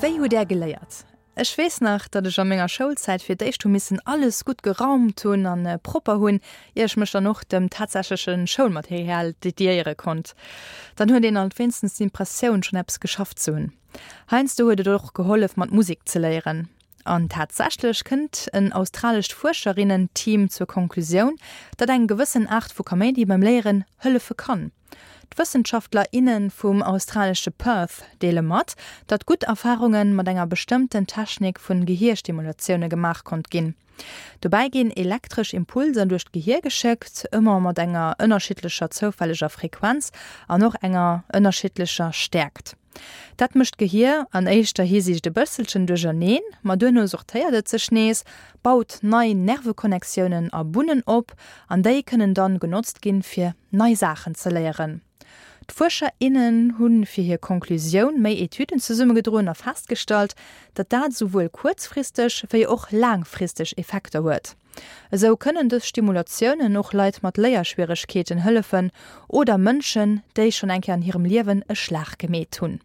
Wéi hutt Är geléiert? Ech weess nach, datt ech a menger Schoulzäit fir d'éischt hu missen alles gutt geraumt hunn an propper hunn, ier ech mech dann och dem tatsächleche Schoulmaterial dediéiere konnt. Dann huet een alt wéinstens d'Impressioun, schonn eppes geschafft ze hunn. Heiansdo huet et och gehollef, mat Musek ze léieren. An tatsächlech kënnt en australescht Fuerscherinnen-Team zur Konklusioun, datt eng gewëssen Aart vu Kaméidi beim Léieren hëllefe kann. D'Wëssenschaftler, inne vum australesche Perth deele mat, datt gutt Erfarunge mat enger bestëmmten Technik vun Gehierstimulatioune gemaach konnt ginn. Dobäi ginn elektresch Impulser duerch d'Gehier geschéckt, ëmmer mat enger ënnerschiddlecher zoufälleger Frequenz an och enger ënnerschiddlecher Stäerkt. Dat mécht d'Gehier an éischter Hisiicht e bësselchen duercherneen, ma duerno sortéiert et sech nees, baut nei Nerveconnectiounen a Bunnen op an déi kënnen dann genotzt ginn, fir nei Saachen ze léieren. D'Fuerscher, innen hu fir hir Konklusioun méi Etüden zesummegedroen a festgestallt, datt dat esouwuel kuerzfristeg wéi och laangfristeg Effekter huet. Esou kënnen dës Stimulatiounen och Leit mat Léierschwieregkeeten hëllefen oder Mënschen, déi schonn eng Kéier an hirem Liewen e Schlag gemeet hunn.